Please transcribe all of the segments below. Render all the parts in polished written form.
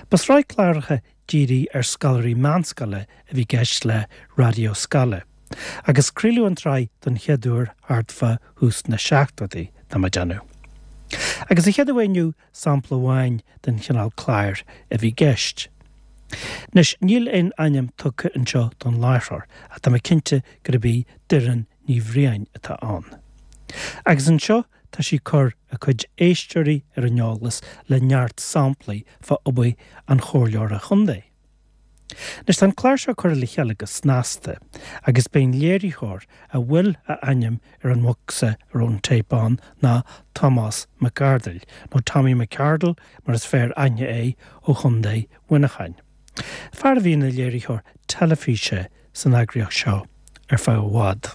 Ba sraith cláracha dírithe ar scoláirí meánscoile a bhí i gceist le Raidió Scoile, agus craoladh an tsraith don chéad uair thart fá thús na seachtóidí, tá mé ag déanamh. Agus sa chéad uair inniu, sampla amháin den chineál cláir a bhí i gceist. Anois, níl aon ainm tugtha anseo don láithreoir, ach tá mé cinnte gurb í Doireann Ní Bhriain atá ann. Agus anseo tá sí ag cur a cuid éisteoirí ar an eolas le neart samplaí fá obair an chomhairleora chontae. Anois tá an clár seo curtha le chéile go snasta agus b'é an léiritheoir a bhfuil a ainm ar an mbocsa a raibh an téip ann ná Tomás Mac Ardail, nó Tommy McArdle mar is fearr aithne é, ó Chontae Mhuineacháin. Fear a bhí ina léiritheoir teilifíse san eagraíocht seo ar feadh i bhfad.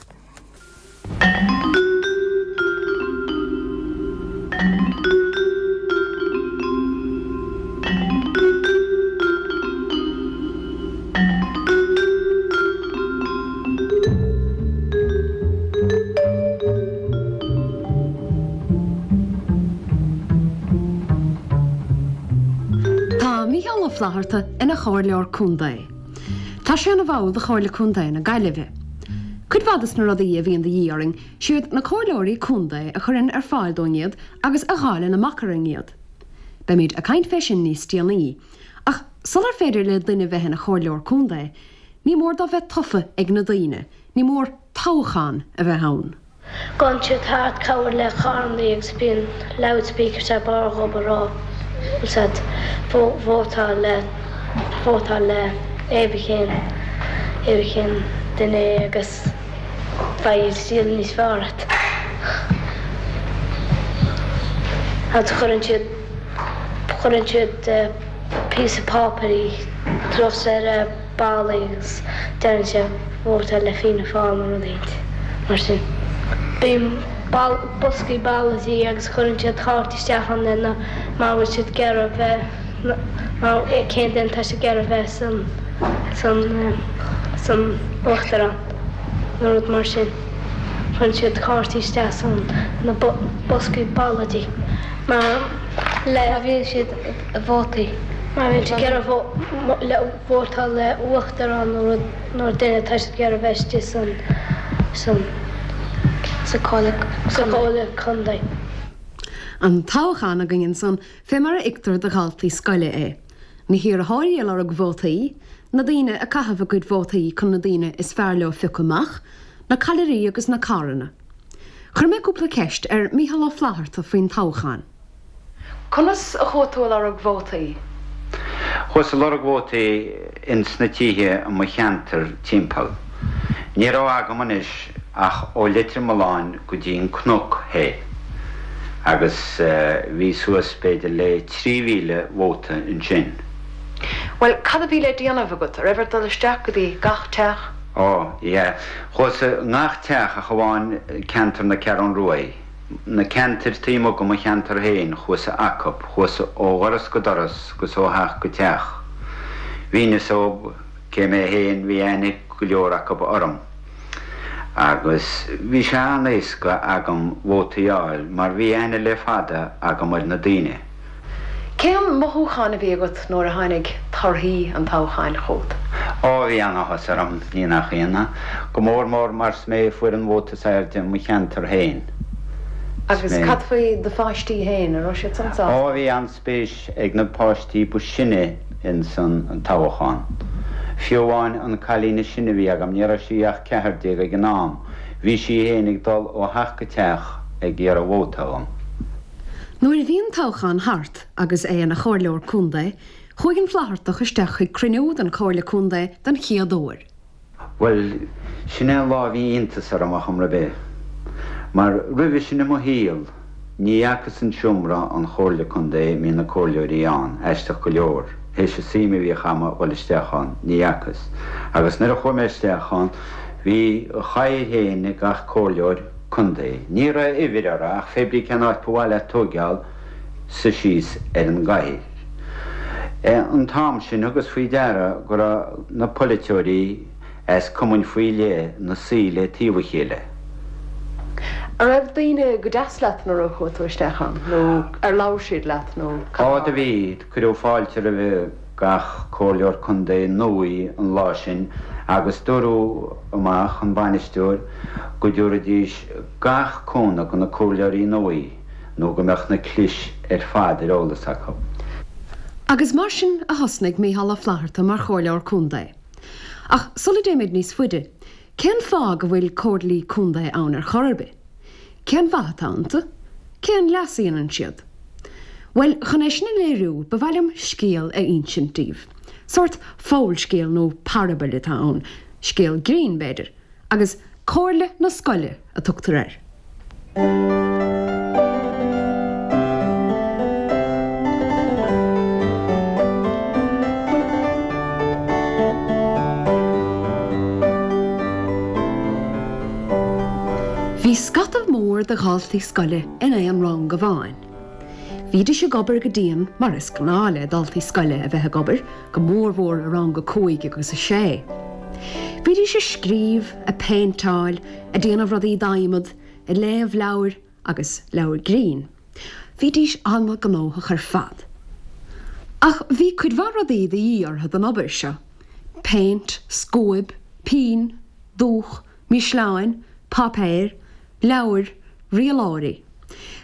Tá Mícheál Ó Flaithearta ina chomhairleoir contae. Tá sé ina bhall de Chomhairle Contae na Gaillimhe. Cuid mhaith des na rudaí a bhíonn de dhíth orainn, siad na comhairleoirí contae a chuireann ar fáil dúinn iad agus a dháileann amach orainn iad. Beimid ag caint fé sin níos déanaí. Ach sular féidir le duine bheith ina chomhairleoir contae, ní mór dó bheith tofa ag na daoine, ní mór toghchán a bheith ann. Gabhann siad thart cabhair le carrannaí agus bíonn loudspeakers ar barr dhób a rá úsáid vótáil le vótáil le cén cén duine é agus beidh saol níos fearr agat. Agus cuireann siad cuireann siad píosa páipéir suas ar ballaí agus deireann sé vótáil le Fianna Fáil nó rud éicint mar sin. Bíonn boscaí ballóidí agus cuireann siad cártaí isteach ann lena mar bhfuil siad ag iarraidh bheith mar cén duine atá siad ag iarraidh bheith san san san uachtarán nó rud mar sin. Cuireann siad cártaí isteach san na boscaí ballóidí mar le má bhíonn siad vótaí má bhíonn siad ag iarraidh le vótáil le uachtarán nó rud nó duine atá siad ag iarraidh bheith istigh san san sa chomhairle contae. An toghchán againn ansan fé mar a fheictear do dhaltaí scoile é. Na hiarrthóirí ag lorg vótaí, na daoine ag caitheamh a gcuid vótaí chun na daoine is fearr leo a phiocadh amach, na callairí agus na carranna. Chuir mé cúpla ceist ar Mícheál Ó Flaithearta faoin toghchán. Conas a chuaigh tú ag lorg vótaí? Chuas ag lorg vótaí ins na tithe i mo cheantar timpeall. Ní raibh agam anois ach ó Leitir Mealláin go dtí an Cnoc thoir agus bhí suas b'fhéidir le 3,000 vóta ansin. Bhuel, cad a bhí le déanamh agat? An raibh ort dul isteach go dtí gach teach? Ó, yeah. Chuas i ngach teach ach amháin ceantar na Ceathrún Ruaidh. Na ceantair taobh amuigh de mo cheantar féin, chuas acub, chuas ó dhoras go doras 'gus ó theach go teach. Mhínios dhób cé mé féin, bhí aithne ag go leor acub orm. Agus bhí sé an-éasca agam vótaí a fháil mar bhí aithne le fada agam ar na daoine. Cén mothúchán a bhí agat nuair a tháinig torthaí an toghcháin chugat? Ó, bhí an-áthas orm, ní nach ionadh. Go mór mór mar is mé a fuair an vóta is airde i mo cheantar féin. Agus cad faoi do pháistí féin, an raibh siad san sásta? Ó, bhí an-spéis ag na páistí ba sine ins an toghchán. Fiú amháin an cailín is sine a bhí agam, ní raibh sí ach 14 ag an am, bhí sí féin ag dul ó theach go teach ag iarraidh vóta dhom. Nuair a bhí an toghchán thart agus é ina chomhairleoir contae, chuaigh an Flaitheartach isteach chuig cruinniú den Chomhairle Contae den chéad uair. Bhuel, sin é an lá a bhí iontas orm ar chuma ar bith. Mar roimhe sin i mo shaol, ní fhacas an seomra an Chomhairle Contae a mbíonn na comhairleoirí ann, aisteach go leor, théis an suim a bhíodh a'm a dhul isteach ann, ní fhacas. Agus nuair a chuaigh mé isteach ann, bhí a chathaoir féin ag gach comhairleoir, Contae. Ní raibh uimhir orthu ach fé brí cén áit ba mhaith leat tóigeáil suí síos ar an gcathaoir. An t-am sin thugas faoi deara go raibh na polaiteoirí as cumainn faoi leith 'na suí le taobh a chéile. An raibh daoine go deas leat nuair a chuaigh tú isteach ann nó ar labhair siad leat nó cad a Ó do bhí, cuireadh fáilte roimhe. Gach Comhairleoir Contae nuaí an lá sin agus dúradh amach, an bainisteoir, go dtabharfaidís gach cúnamh do na Comhairleoirí nuaí nó go mbeadh na clis ar fad ar eolas acu. Agus mar sin a thosnaigh Micheál Ó Flatharta mar Chomhairleoir Contae. Ach sula dtéimid níos faide, cén fáth go bhfuil Comhairlí Contae ann ar chor ar bith? Cén mhaith atá iontu? Cén leas a dhéanann siad? Bhuel, chun é sin a léiriú, ba mhaith liom scéal a insint daoibh. Sórt fabhalscéal nó parabail atá ann, scéal grinn, b'fhéidir, agus Comhairle na Scoile a tugtar air. Bhí scata mór de dhaltaí scoile in aon rang amháin. Bhídís ag obair go dian mar is gnáth le daltaí scoile a bheith ag obair, go mórmhór i rang a cúig agus a sé. Bhídís ag scríobh, ag péinteáil, ag déanamh rudaí d'adhmad, ag léamh leabhair agus leabhair grinn. Bhídís an-ghnóthach ar fad. Ach bhí cuid mhaith rudaí de dhíth orthu don obair seo, péint, scuaib, pinn, dúch, mísleáin, páipéir, leabhair, rialóirí.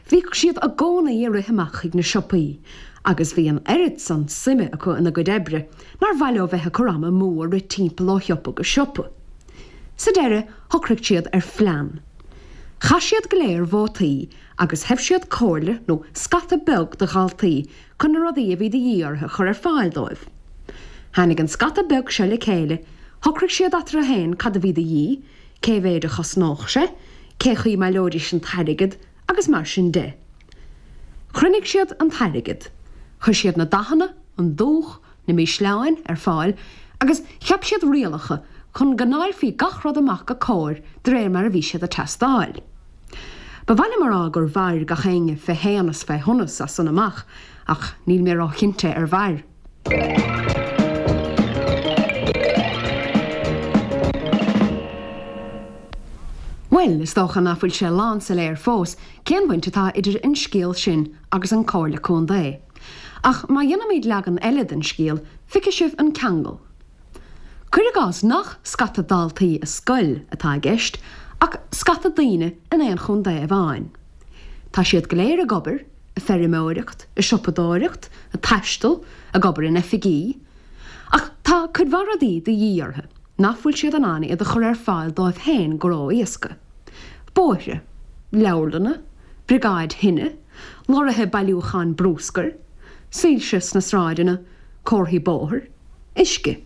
Bhíodh siad i gcónaí ag rith amach chuig na siopaí agus bhí an oiread san suime acu ina gcuid oibre nár mhaith leo bheith ag cur ama amú ag rith timpeall ó shiopa go siopa. Sa deireadh shocraigh siad ar phlean. Chaith siad go léir vótaí agus thoibh siad comhairle nó scata beag de dhaltaí chun na rudaí a bhí de dhíth orthu a chur ar fáil dóibh. Tháinig an scata beag seo le chéile, shocraigh siad eatarthu féin cad a bhí de dhíth, cé mhéid a chosnódh sé, cé chaoi a mbaileoidís an t-airgead agus mar sin de. Chruinnigh siad an t-airgead, chuir siad na dathanna, an dúch, na mísleáin ar fáil agus cheap siad rialacha chun go ndáilfí gach rud amach go cóir de réir mar a bhí siad ag teastáil. Ba mhaith liom a rá gur mhair gach éinne fé shéan is fé shonas as san amach ach níl mé róchinnte ar mhair. Bhuel, is dócha ná fuil sé lánsoiléir fós cén bhaint atá idir an scéal sin agus an Comhairle Contae. Ach má dhéanaimid leagan eile den scéal, feicfidh sibh an ceangal. Cuir i gcás nach scata daltaí i scoil atá i gceist, ach scata daoine in aon chontae amháin. Tá siad go léir ag obair, ag feirmeoireacht, ag siopadóireacht, ag taisteal, ag obair in oifigí. Ach tá cuid mhaith rudaí de dhíth orthu nach bhfuil siad in ann iad a chur ar fáil dóibh féin go ró-éasca. Bóithre. Leabharlanna. Briogáid thine. Lorraithe bailiúcháin brúscair. Soilse sna sráideanna. Comharthaí bóthair. Uisce.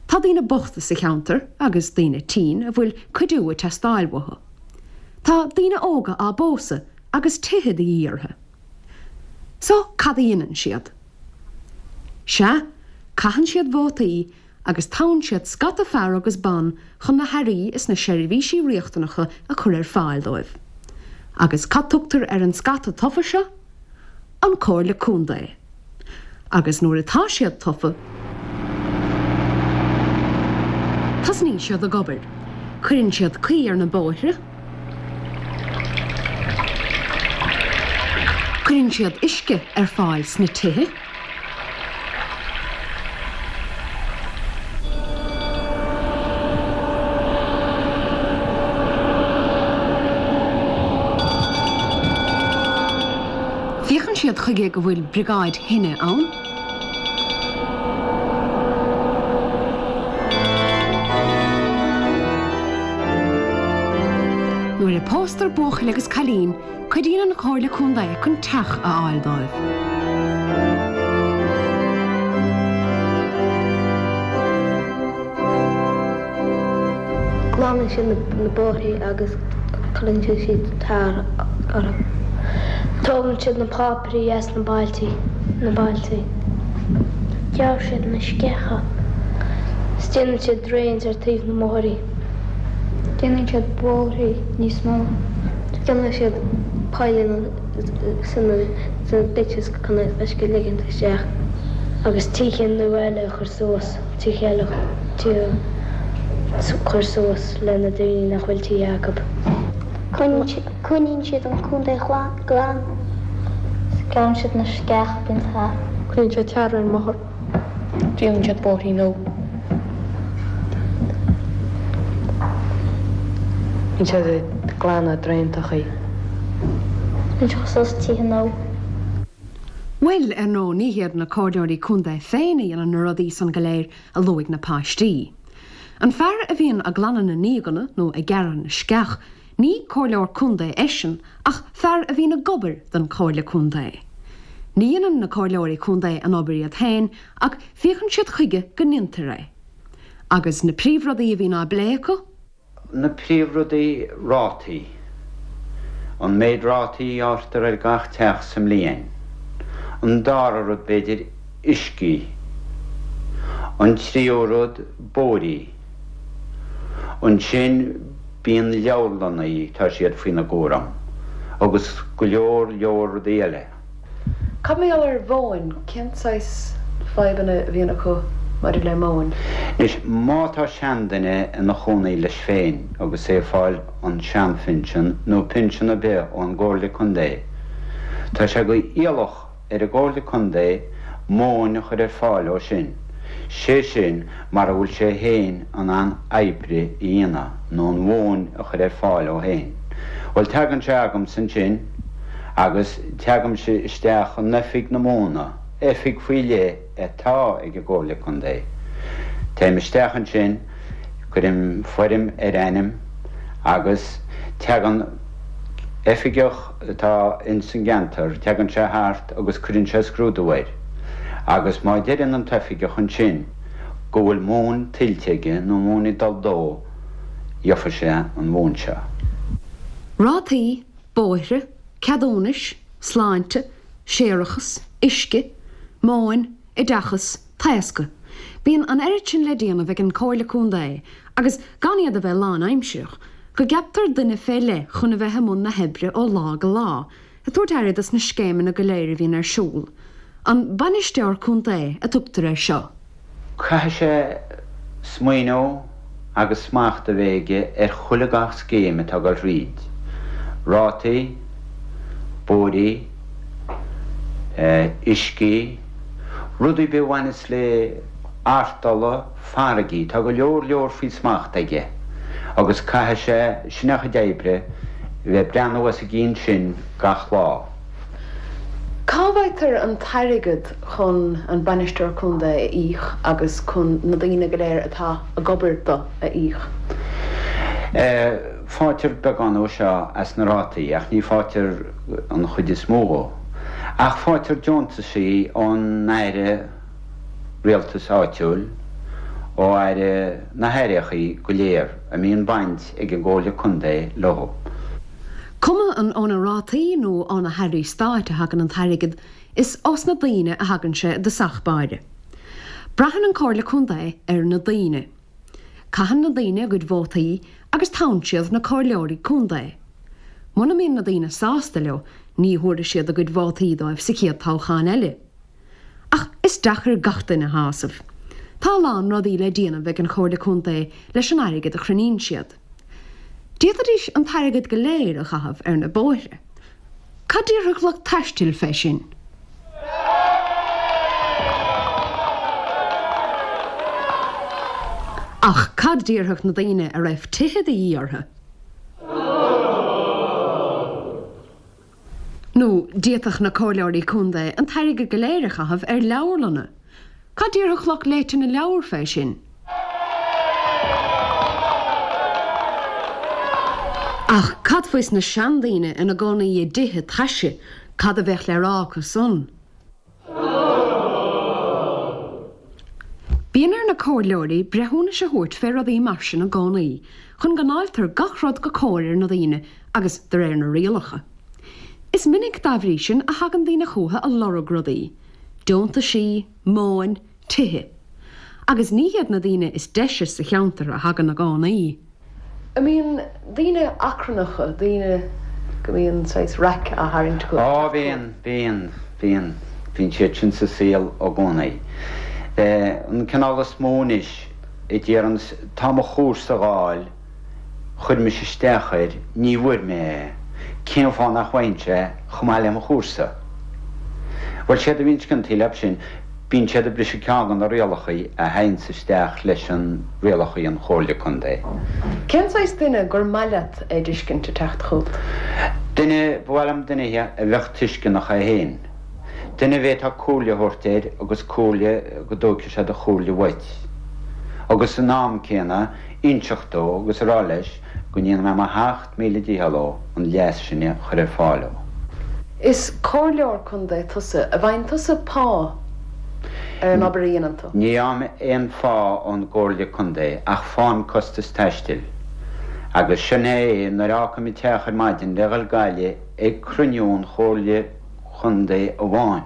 Tá daoine bochta sa cheantar agus daoine tinn a bhfuil cuidiú ag teastáil uathu. Tá daoine óga á bpósadh agus tithe de dhíth orthu. So, cad a dhéanann siad? Sea, caitheann siad vótaí agus toghann siad scata fear agus ban chun na hearraí is na seirbhísí riachtanacha a chur ar fáil dóibh. Agus cad tugtar ar an scata tofa seo? An Comhairle Contae. Agus nuair atá siad tofa, tosnaíonn siad ag obair. Cuireann siad caoi ar na bóithre, cuireann siad uisce ar fáil sna tithe, Féachann siad chuige go bhfuil briogáid thine ann. Nuair a póstar buachaill agus cailín, cuidíonn an Chomhairle Contae chun teach a fháil dóibh. Glanann siad na bóithrí agus cuireann siad tar orthu. Tógann siad na páipéirí as na bailtí, na bailtí. Gearrann siad na sceacha. 'S déanann siad drains ar taobh na mbóithrí. Déanann siad bóithrí níos mó. Déanann siad poilleanna sna ditches chun an uisce a ligint isteach agus tithe nua eile a chur suas, tithe eile tithe a chur suas le na daoine nach bhfuil tithe acu. Coinníonn siad an contae glan. Gearrann siad na sceacha bíonn thart. Cuireann siad tar ar an mbóthar. Déanann siad bóithrí nua. Bíonn siad ag glanadh draentachaí. Bíonn siad suas tithe nua. Bhuel, ar ndóigh, ní hiad na comhairleoirí contae féin a dhéanann na rudaí san go léir a luaigh na páistí. An fear a bhíonn ag glanadh na ndíoganna nó ag gearradh na sceach, ní comhairleoir contae eisean ach fear a bhíonn ag obair don chomhairle contae. Ní dhéanann na comhairleoirí contae an obair iad féin ach féachann siad chuige go ndéantar é. Agus na príomhrudaí a bhíonn á bplé acu? Na príomhrudaí, rátaí. An méid rátaí a ghearrtar ar gach teach sa mbliain. An dara rud, b'fhéidir, uiscí. An tríú rud, bóithrí. Ansin bíonn leabharlannaí, tá siad faoina gcúram, agus go leor leor rudaí eile. Cad mar gheall ar mhóin? Cén saghas fadhbanna a bhíonn acu maidir le móin? Anois, má tá seanduine ina chónaí leis féin agus é ag fáil an seanphinsean nó pinsean ar bith ón gComhairle Contae, tá sé go iallach ar an gComhairle Contae móin a chur ar fáil dó sin, sé sin mara bhfuil sé féin in ann oibre a dhéanamh nó an mhóin a chur ar fáil dó féin. Bhuel, tagann sé agamsa ansin agus teagaimse isteach in oifig na móna, oifig faoi leith atá ag an gComhairle Contae. Téim isteach ansin, cuirim foirm ar a ainm agus teagann oifigeach atá ins an gceantar, teagann sé thart agus cuireann sé scrúdú air agus má deireann an t-oifigeach ansin go bhfuil móin tuillte aige nó móin ag dul dó, gheofa sé an mhóin seo. Rátaí, bóithre, ceadúnais, sláinte, séarachas, uisce, móin, oideachas, taoscadh. Bíonn an oiread sin le déanamh ag an Comhairle Contae, agus gan iad a bheith lánaimsireach, go gceaptar duine fé leith chun a bheith i mbun na hoibre ó lá go lá, ag tabhairt aire dos na scéimeanna go léir a bhíonn ar siúl. An Bainisteoir Contae a tugtar air seo. Caithfidh sé smaoineamh agus smacht a bheith aige ar chuile gach scéim atá ag dul thríd, rátaí, bóithrí, uiscí, rudaí ar bith a bhaineas le artola, farraigí, tá go leor leor faoi smacht aige agus caithfidh sé, sin a chuid oibre, bheith ag breathnú os a gcionn sin gach lá. Cá bhfaightear an t-airgead chun an Bainisteoir Contae a íoc agus chun na daoine go léir atá ag obair do a íoc? Faightear beagán ó seo as na rátaí ach ní faightear an chuid is mó dhó. Ach faightear deontaisí ón Aire Rialtais Áitiúil, ó Aire na hAireachaí go léir a mbíonn baint ag an gComhairle Contae leo. Cuma an ó na rátaí nó ó na hairí stáit a thagann an t-airgead, is ós na daoine a thagann sé i dtosach báire. Braitheann an Comhairle Contae ar na daoine. Caitheann na daoine a gcuid vótaí agus toghann siad na comhairleoirí contae. Muna mbíonn na daoine sásta leo, ní thabharfaidh siad a gcuid vótaí dóibh sa chéad toghchán eile. Ach is deacair gach duine a shásamh. Tá a lán rudaí le déanamh ag an Chomhairle Contae leis an airgead a chruinníonn siad. D'fhéadfaidís an t-airgead go léir a chaitheamh ar na bóithre. Cad déarfadh lucht taistil fé sin? Ach cad déarfadh na daoine a raibh tithe de dhíth orthu? Nó d'fhéadfadh na comhairleoirí contae an t-airgead go léir a chaitheamh ar leabharlanna. Cad déarfadh lucht léite na leabhar fé sin? Ach cad faois na seandaoine ina gcónaí i dtithe taise, cad a bheadh le rá acu san? Bíonn ar na comhairleoirí breithiúnais a thabhairt fé rudaí mar sin i gcónaí, chun go ndáiltear gach rud go cóir ar na daoine agus de réir na rialacha. Is minic dá bhrí sin a thagann daoine chúthu a lorg rudaí, deontaisí, móin, tithe. Agus ní hiad na daoine is deise sa cheantar a thagann i gcónaí. An mbíonn daoine achrannacha, daoine go mbíonn saghas raic á tharraingt acu? Á, bíonn, bíonn, bíonn. Bíonn siad sin sa saol i gcónaí. An cineál is mó anois a deireanns, tá mo chúrsa a dh'fháil, chuir mise isteach air, ní bhfuair mé é, cén fáth nach bhfaighinnse é chomh maith le mo chúrsa? Bhuel, séard a bhíonns ciontaí leob sin. Bíonn siad ag briseadh ceann de na rialachaí a théanns isteach leis an rialachaí an Chomhairle Contae. Cén saghas duine gur maith leat a d'fheiscint ag teacht chugat? Duine, ba mhaith liom duine a bheadh tuisceanach é féin. Duine a bhféadfá comhairle a thabhairt air agus comhairle go dtógfaidh sé do chomhairle uait. Agus san am céanna inseacht dó agus a rá leis go ndéanfaidh mé mo sheacht míle dícheall dó an leas sin a chur ar fáil dó. Is comhairleoir contae tusa. An bhfaigheann tusa pá ar an obair a dhéanann tú? Ní fhaighim aon phá ón gcomhairle contae ach faighim costas taistil. Agus sin é nuair a fhágfaim an teach ar maidin le dhul Gaillimh ag cruinniú an chomhairle chontae amháin,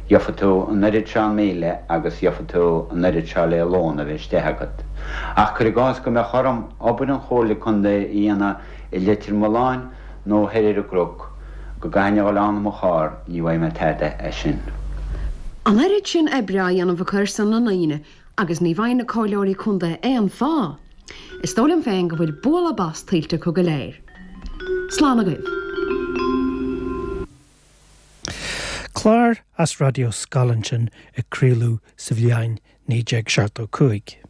gheofa tú an oiread seo míle agus gheofa tú an oiread seo le lón a bheith istigh agat. Ach cuir i gcás go mbeadh orm obair an chomhairle contae a dhéanamh i Leitir Mealláin nó thoir ar an gCnoc, go gcaithfinn a dhul ann i mo charr, ní bhfaighidh mé tada as sin. An oiread sin oibre á dhéanamh acu ar son na ndaoine agus ní bhfaigheann na comhairleoirí contae aon phá. Is dóigh liom féin go bhfuil bualadh bas tuillte acu go léir. Slán agaibh. Clár as Raidió Scoil ansin a craoladh sa bhliain 1975.